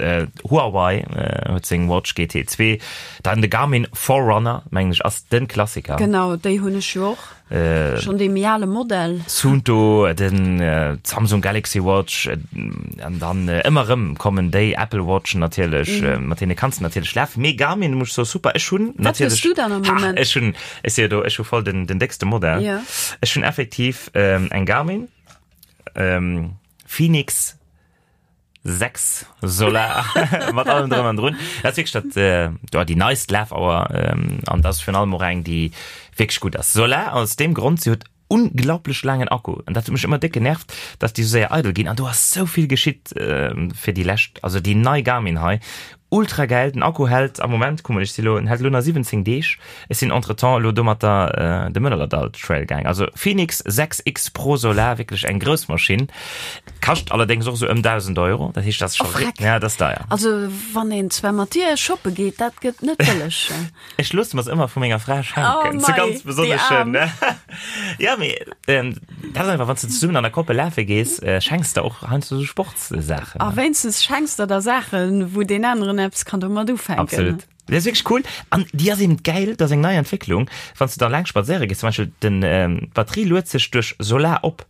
Huawei huet seng Watch GT 2, dann de Garmin Forerunner, mengen ech, ass de Klassiker. Genau, déi hunn ech jo och. Schon dee méi ale Modell. Suunto, den Samsung Galaxy Watch, an dann ëmmer erëm kommen déi Apple Watchen natierlech, mat deene kanns de natierlech lafen. Mee Garmin muss ech soen, super. Ech hunn natierlech. Wat hues du dann am Moment? Ha, ech hunn, ech si jo do, ech hu voll den, den déckste Modell. Ja. Ech hunn effektiv eng Garmin Fenix 6 Solar mat allem drëm an drun. Dat ass wierklech dat, äh, ja, déi neist Lafauer ähm, an dat ass virun allem och eng, déi wierklech gutt ass. Solar aus deem Grond, si huet unglaublech laangen Akku an dat huet mech ëmmer déck genervt, dass déi sou séier eidel ginn an do ass sou vill geschitt äh, fir déi lescht, also déi nei Garmin hei, ultra gäil, den Akku hält am Moment, kuck mol, ech si lo, en hält elo nach 17 Deeg. Ech sinn entretemps elo domatter de Mëllerdall Trail gaang. Also Fenix 6 X Pro Solar, wierklech eng grouss Maschinn. Kascht allerdéngs och esou ëm 1.000 Euro. Dat heescht, dat ass scho, Oh freck. ja, dat ass deier. Also wann een zwar mat dir shoppe geet, dat gëtt net bëlleg. Ech loosse mer se ëmmer vu menger Fra schenken. Oh Zu mei, ganz déi besonneschen. Aarm. Ja, mee dat ass einfach, wann s de zesummen an der Koppel lafe gees, schenks de och heiansdo esou Sportssaachen. A wéinstens schenks der der Saachen, wou deen aneren eppes kann domat ufänken. Absolut. Dat ass wierklech cool an déi ass eben gäil, dat ass eng nei Entwécklung, wann s de da laang spadséiere gees, zum Beispill den d'Batterie luet sech duerch Solar op,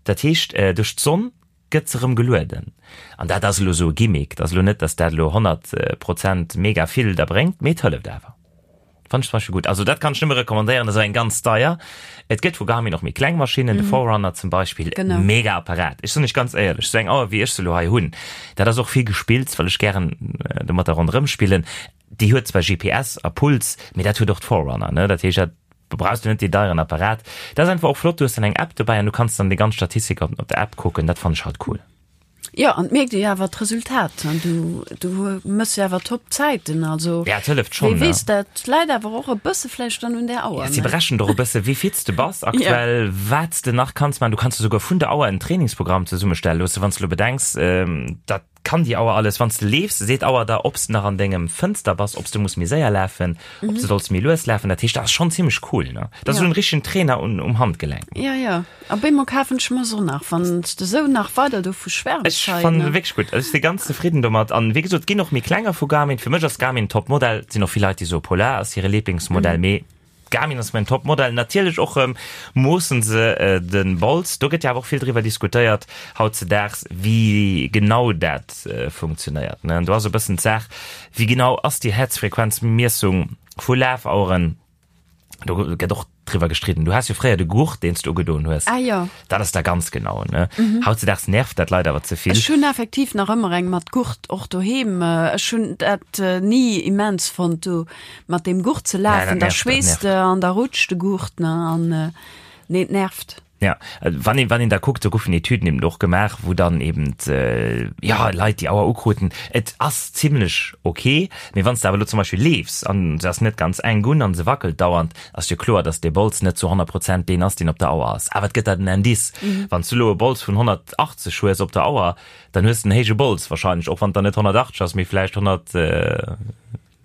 dat heescht duerch d'Sonn gëtt se rëm gelueden an dat ass elo esou e Gimmick, dat ass elo net, datt dat elo 100 Prozent mega vill der bréngt, mee et hëlleft awer. Fannt ech zum Beispill gutt. Also dat kann ech nëmme recommandéieren, dat ass eng ganz deier. Et gëtt vu Garmin och méi kleng Maschinnen, de Forerunner zum Beispill, mega Apparat. Ech soen iech ganz éierlech, esou eng Auer wéi ech se elo hei hunn, dat ass och vill gespillt, well ech gären domatter ronderëm spillen. Déi huet zwar GPS a Puls, mee dat huet och d'Forerunner, ne? Dat heescht, dat brauchs du net dee deieren Apparat. Dat ass einfach och flott, du hues dann eng App dobäi an du kanns dann déi ganz Statistik op der App kucken. Dat fannen ech halt cool. Jo, an et mierkt ee jo awer d'Resultat. An du, du mëss jo awer top Zäiten. Also, Ja, et hëlleft schonn, wee weess, dat läit awer och e bësse vläicht dann un där Auer, Ja, si ne? berechnen och e bësse wéi fit s de bass aktuell, wat s de nach kanns maachen. Du kanns der souguer vun der Auer en Trainingsprogramm zesummestelle loossen, wann s de elo bedenks, dat kann déi Auer alles. Wann s de leefs, seet d'Auer der, ob s de nach an dengem Fënster bass, ob s de muss méi séier lafen, ob s de solls méi lues lafen. Dat heescht, dat ass schonn zimmlech cool, ne? Dat ass Ja. esou en richtegen Trainer un, um Handgelenk. Ja, ja. A bémol kafen ech mer se och nach, wann s de sou nach weider dovu schwärms Ech hei, fannen ne? se wierklech gutt. Also ech si ganz zefridden domat. An wéi gesot, et ginn och méi klenger vu Garmin. Fir mech ass Garmin Topmodell. Et sinn och vill Leit, déi soe Polar ass hire Lieblingsmodell, mee Garmin ass mäin Topmodell. Natierlech och erëm moossen se de Bols. Do gëtt jo awer och vill driwwer diskutéiert hautzedaags, wéi genau dat funktionéiert, ne? An do ass e bëssen d'Saach, wéi genau ass déi Häerzfrequenzmiessung vu Lafaueren? Do gëtt och driwwer gestridden. Du has jo fréier de Gurt, deen s du ugedoen hues. Ah jo. Dat ass da ganz genau, ne? Hautzedaags nervt dat Leit awer ze vill. Ech hunn effektiv nach ëmmer eng mat Gurt, och doheem. Ech hunn dat ni immens fonnt, do mat deem Gurt ze lafen. Da schweesst de an da rutscht de Gurt, ne? An nee, et nervt. Ja, wann een, wann een da kuckt, do goufen Etüden eben och gemaach, wou dann eben, ja, Leit déi Auer ukruten. Et ass zimlech ok, mee wann s de awer elo zum Beispill leefs an se ass net ganz enk un an se wackelt dauernd, ass jo kloer, dass dee Bols net zu 100 Prozent deen ass, deen op der Auer ass. Awer et gëtt der den Indice. Wann s du elo e Bols vun 180 hues op der Auer, dann hues de en héije Bols wahrscheinlech, och wann et dann net 180 ass, mee vläicht 100.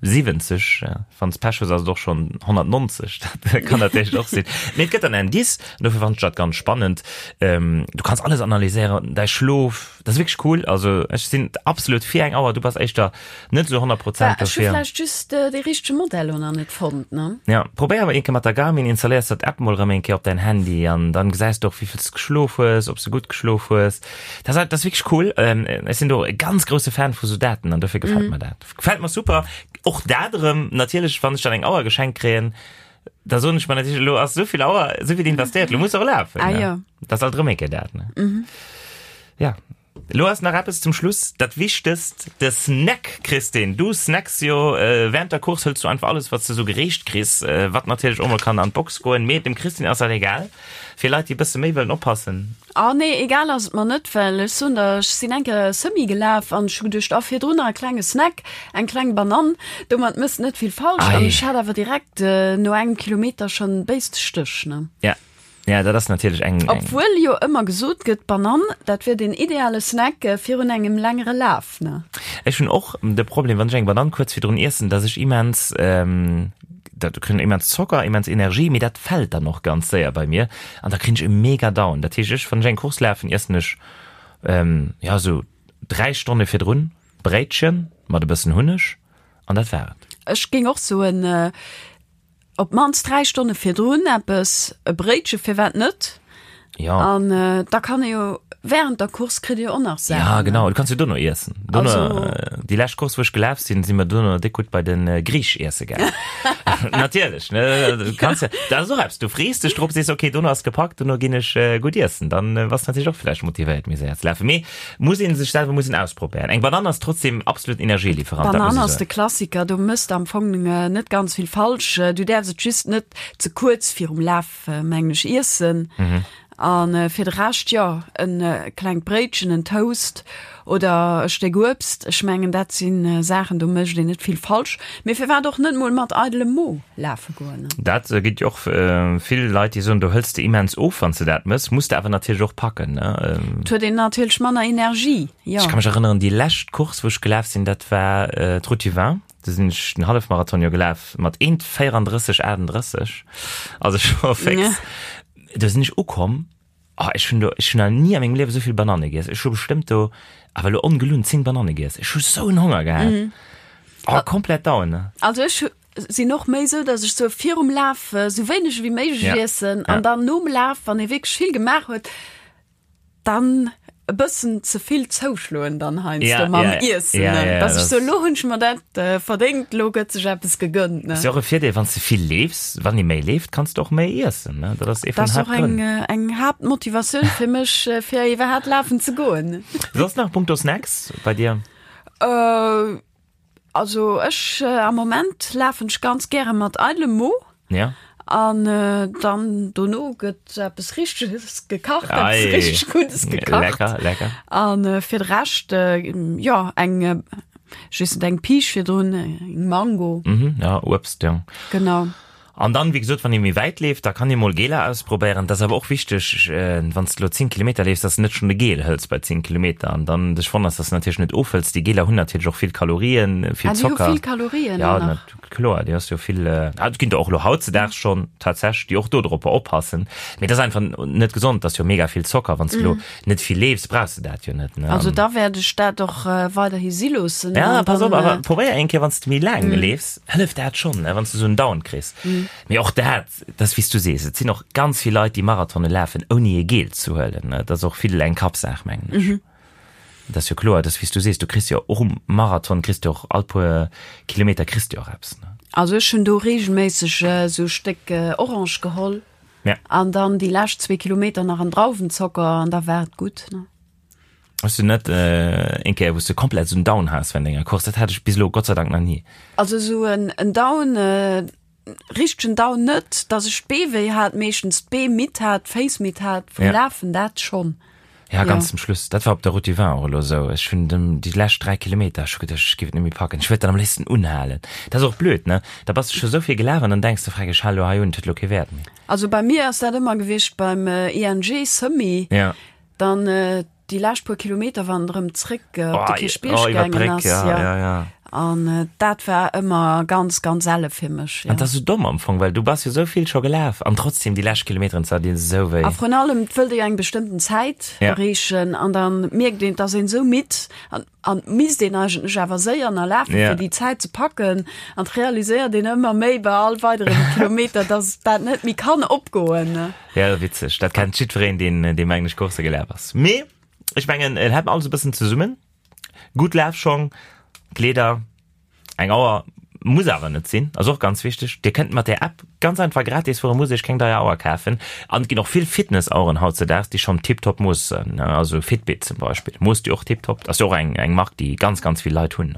70, wann s Pech hues ass et och schonn 190, dat kann natierlech och sinn. Mee et gëtt dann Indice, an dofir fannen ech dat ganz spannend. Du kanns alles analyséieren, däi Schlof, dat ass wierklech cool. Also ech sinn absolut fir eng Auer, du bass éischter net esou 100 Prozent dofir. Ech hu vläicht just dee richtege Modell elo nach net fonnt, ne? Ja, probéier awer eng Kéier mat der Garmin, installéiers der d'App mol erëm eng Kéier op däin Handy an dann gesäis de och wéi vill s geschlof hues, ob s de gutt geschlof hues. Dat ass, dat ass wierklech cool. Ech sinn do e ganz grousse Fan vu sou Daten an dofir gefält mer dat. Gefällt mer super. Och dat erëm, natierlech, wann ech dann eng Auer geschenkt kréien, da soen ech mer natierlech, elo ass souvill Auer, souvill investéiert, elo muss och lafen. Ah, ja. Dat ass alt erëm eng Kéier dat, ne? Mhm. Ja. Elo ass nach eppes zum Schluss, dat Wichtegst, de Snack, Christine. Du snacks jo während der Course, hëls du einfach alles, wat s de sou gereecht kriss, wat natierlech och mol kann an d'Box goen, mee dem Christine ass dat egal. Fir Leit, déi e bësse méi wëllen oppassen. Ah nee, egal ass et mer net, well ech soen der, ech sinn eng Kéier Semi gelaf an ech hu geduecht, ah virdrun nach e klenge Snack, eng kleng Banann, domat mëss net vill falsch an ech hat awer direkt no engem Kilometer schonn béiste Stéch, ne. Ja, ja, dat ass natierlech eng, eng. Obwuel jo ëmmer gesot gëtt, d'Banann, dat wier den ideale Snack virun engem längere Laf, ne. Ech hunn och de Problem, wann ech eng Banann kuerz virdrun iessen, dass ech immens, dat kritt immens Zocker, immens Energie, mee dat fält dann och ganz séier bei mir an da kréien ech e mega Down. Dat heescht, ech, wann ech eng Course lafen, iessen ech ja esou 3 Stonne virdrun Bréitchen mat e bëssen Hunneg an dat war et. Ech géing och soen, op d'mannst 3 Stonne virdrun eppes, e Bréitche, firwat net? Ja. An da kann ee jo während der Course kritt ee jo och nach Saachen. Ja, genau, du kanns jo dono iessen. Dono, also, déi lescht Course, wou ech gelaf sinn, si mer dono déck gutt bei den Griich iesse gaangen. Natierlech, ne? Du kanns ja, dat ass och eppes, du frees dech drop, sees, okay, dono ass gepackt, dono ginn ech gutt iessen. Dann bass du natierlech och vläicht motivéiert, méi séier ze lafen. Mee muss ee sech selwer muss een ausprobéieren. Eng Banann ass trotzdem absolut Energielieferant, dat muss Banann ech ass de soen. Klassiker, do mëss de am Fong net ganz vill falsch. Du däerfs et just net ze kuerz virum Laf mengen ech iessen an fir de Rescht jo en klengt Bréitchen, en Toast oder e Stéck Uebst. Ech mengen dat sinn Saachen do mécht een net vill falsch. Mee firwat och net mol mat eidelem Mo lafe goen? Dat gëtt jo och vill Leit déi soen do hëls de immens of wann s de dat mëss. Muss de awer natierlech och packen ne. Et huet een natierlech manner Energie, jo. Ech ka mech erënneren déi lescht Course wou ech gelaf sinn dat war d'Route du Vin. Do sinn ech den Hallefmarathon jo gelaf mat 1,34 38, also scho fix. Ja. Do sinn ech ukomm, oh, ech hunn do, ech hunn nach ni a mengem Liewe souvill Bananne giess. Ech hu bestëmmt do, awer elo ongelunn, 10 Bananne giess. Ech hu sou en Honger gehat. Mm. Oh, komplett down, ne? Also ech sinn och méi sou, dass ech sou virum Laf sou wéineg wéi méiglech ja. iessen an ja. dann nom Laf, wann ee wierklech vill gemaach huet, dann e bëssen ze vill zouschloen dann heiansdo Ja, mam ja, Iessen, ja, ne? ja, Dass ech das- so, lo hunn ech mer dat äh, verdéngt, lo gëtt sech eppes gegënnt, ne? Ass jo och e Virdeel, wann s de vill leefs, wann ee méi leeft, kanns de och méi iessen, ne? Dat ass ee Dat vun ass och eng, Haaptgrënn. äh, eng Haaptmotivatioun fir mech, äh, fir iwwerhaapt lafen ze goen. Soss nach punkto Snacks bei dir? Äh, Also ech am Moment lafen ech ganz gäre mat eidelem Mo. Ja. An dann dono gëtt eppes Richteges gekacht, eppes richteg Guddes gekacht. Lecker, lecker. An fir de Rescht, jo, eng, ech weess net, eng Piisch virdrun, eng Mango. Mhm, ja, Uebst, jo. Genau. An dann, wéi gesot, wann ee méi wäit leeft, da kann ee mol Geler ausprobéieren. Dat ass awer och wichteg, wann s de elo 10 Kilometer leefs, dass de net schonn e Gel hëls bei 10 Kilometer an dann dech wonners, dass de natierlech net ofhëls. Déi Geler hunn natierlech och vill Kalorien, vill Ah, déi hu Zocker. vill Kalorien Ja, och nach. na kloer, déi hues jo vill, ah, et ginn der och elo hautzedaags schonn tatsächlech, déi och dodropper oppassen. Mee dat ass einfach net gesond, dat ass jo mega vill Zocker. Wann s de elo net vill leefs, brauchs de dat jo net, ne? Also da wäert ech dat och weiderhi si loossen. Ja, pass op, awer probéier eng Kéier, wann s de méi laang leefs, hëlleft dat schonn, ne, wann s de esou en Down kriss. Mee och dat, dat ass wéi s du sees, et sinn och ganz vill Leit, déi Marathone lafen, ouni e Gel ze huelen, ne. Dat ass och vill eng Kappsaach, mengen ech. Dat ass jo kloer, dat ass wéi s du sees, du kriss jo och um Marathon kriss du och all puer Kilometer kriss du och eppes, ne? Also ech hunn do reegelméisseg esou e Stéck Orange geholl Ja. an dann déi lescht zwee Kilometer nach en Drauwenzocker an da war et gutt, ne? Hues du net eng Kéier wou s du komplett esou en Down has während enger Course? Dat hat ech bis elo Gott sei Dank nach ni. Also esou en Down, richtegen Down net, dass ech d'Bee wéi hat, meeschtens d'Bee midd hat, d'Féiss midd hat vum Ja. Lafen, dat schonn. Ja, ganz Ja. zum Schluss. Dat war op der Route du Vin och elo esou. Ech hunn dem déi lescht 3 Kilometer, ech hu geduecht, ech géif et net méi packen. Ech wëllt dann am léifsten unhalen. Dat ass och blöd, ne? Da bass de scho sou vill gelaf an dann denks de, Freck, ech hale lo hei un, et huet lo kee Wäert méi. Also bei mir ass dat ëmmer gewiescht beim ING Semi. Ja. Dann déi lescht puer Kilometer, wann et erëm zréck op de Kierchbierg oh, iwwer gaangen d'Bréck, ass. ja, Ja. ja, ja. An dat war ëmmer ganz, ganz elle fir mech. An Ja. dat ass sou domm am Fong, well du bass jo sou vill scho gelaf an trotzdem déi lescht Kilometeren ze dinn sou wéi. A vrun allem, et wëllt ee jo eng bestëmmten Zäit Ja. erreechen an dann mierkt een, et ass een sou midd an an misst een eigentlech awer séier nach lafen, Ja. fir déi Zäit ze packen. An et realiséiert een ëmmer méi bei all weideren Kilometer, dass dat net méi kann opgoen. Ja, witzeg. Dat kennt jiddwereen, deen, deen mengen ech Course gelaf ass. Mee ech mengen, et hält alles e bëssen zesummen. Gutt Lafschong, Kleeder, eng Auer muss awer net sinn, ass och ganz wichteg. Dir kënnt mat där App ganz einfach gratis fueren, muss iech keng deier Auer kafen. An et ginn och vill Fitness-Aueren hautzedaags, déi schonn tiptop moossen, also Fitbit zum Beispill moosst jo och tiptop. Ass jo och eng, eng Mark, déi ganz, ganz vill Leit hunn.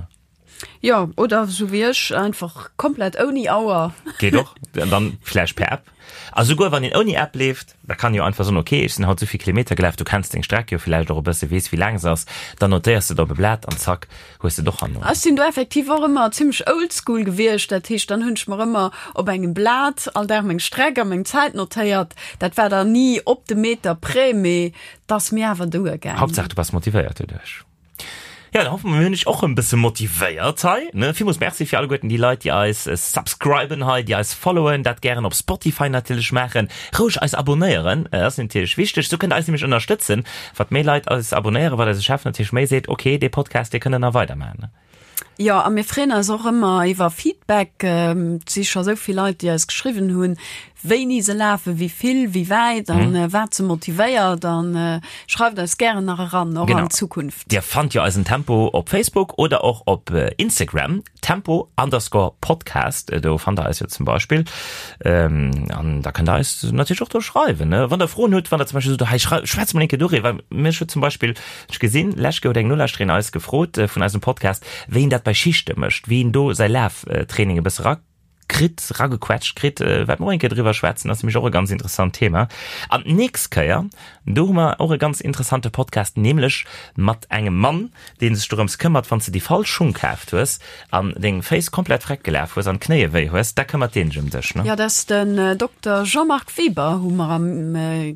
Jo, oder sou wéi ech, einfach komplett ouni Auer. Geet och, dann vläicht per App. A souguer wann een ouni App leeft, da kann een jo einfach soen, ok, ech sinn haut souvill Kilometer gelaf, du kenns deng Streck jo villäicht och e bësse, weess wéi laang se ass, dann notéiers de et op e Blat an zack, hues de et och herno. Ech sinn do effektiv och ëmmer zimmlech oldschool gewiescht, dat heescht, dann hunn ech mer ëmmer op engem Blat all Dag meng Streck a meng Zäit notéiert. Dat war dann ni op de Meter près, mee 't ass mir awer duergaangen. Haaptsaach du bass motivéiert doduerch. Ja, da hoffe mer, mir hunn iech och e bësse motivéiert hei, ne? Villmools Merci fir alleguerten déi Leit, déi eis subscriben hei, déi eis followen, dat gären op Spotify natierlech maachen, roueg eis abonnéieren, dat ass natierlech wichteg, sou kënnt der eis nämlech ënnerstëtzen. Wat méi Leit eis abonnéieren, wat eise Chef natierlech méi seet, ok, dee Podcast, dee kënnt der nach weidermaachen, ne? Jo, a mir freeën eis och ëmmer iwwer Feedback. Et si scho sou vill Leit, déi eis geschriwwen hunn, wéini se lafen, wéi vill, wéi wäit an wat se motivéiert. An schreift eis gären nach eran, och an Zukunft. Dir fannt jo eisen Tempo op Facebook oder och op Instagram, Tempo underscore Podcast, do fannt der eis jo zum Beispill. An da kënnt der eis natierlech och do schreiwen, wann der Froen hutt, wann der zum Beispill sot, hei schwätz mol eng Kéier doriwwer. Mech huet zum Beispill, ech gesinn, lescht Kéier huet eng Nolauschterin eis gefrot vun eisem Podcast, wéi een dat bei Schichte mécht, wéi een do säi Laftraining e bësse ra kritt, ragequetscht kritt, wäerte mer och eng Kéier driwwer schwätzen, ass nämlech och e ganz interessant Thema. An d'nächst Kéier, do hu mer och e ganz interessante Podcast, nämlech mat engem Mann, dee sech dorëms këmmert, wann s de déi falsch Schung kaaft hues an deng Féiss komplett freck gelaf hues an d'Knéie wéi hues, da këmmert deen sech ëm dech, ne? Jo, dat ass den Dokter Jean-Marc Weber, hu mer am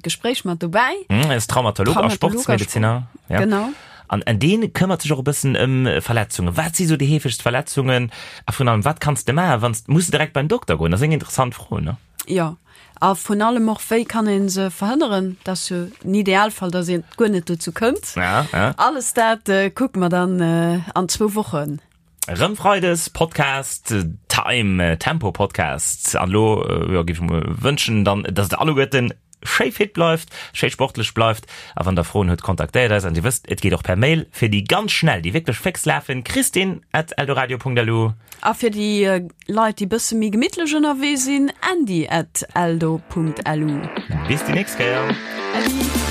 Gespréich mat dobäi. En ass Traumatolog a Sportsmedeziner. Genau. An dee këmmert sech och e bëssen ëm Verletzungen. Wat si sou déi heefegst Verletzungen? A vrun allem, wat kanns de maachen, wann s, muss de direkt beim Dokter goen? Dat ass eng interessant Fro, ne? Jo, a vrun allem och, wéi kann ee se verhënneren? Dat ass jo den Idealfall, datt een guer net dozou kënnt. Ja, ja. Alles dat kucke mer dann an zwou Wochen. Rëm Freides Podcast Time, Tempo Podcast. An elo, jo, géif ech mer wënschen dann, datt der alleguerten schéi fit bleift, schéi sportlech bleift. A wann der Froen hutt, kontaktéiert eis. An Dir wësst, et geet och per Mail fir déi ganz schnell, déi wierklech féx lafen, christine at eldoradio.lu. A fir déi Leit, déi bësse méi gemittlech ënnerwee sinn, andy at eldo.lu. Bis déi nächst Kéier. Äddi.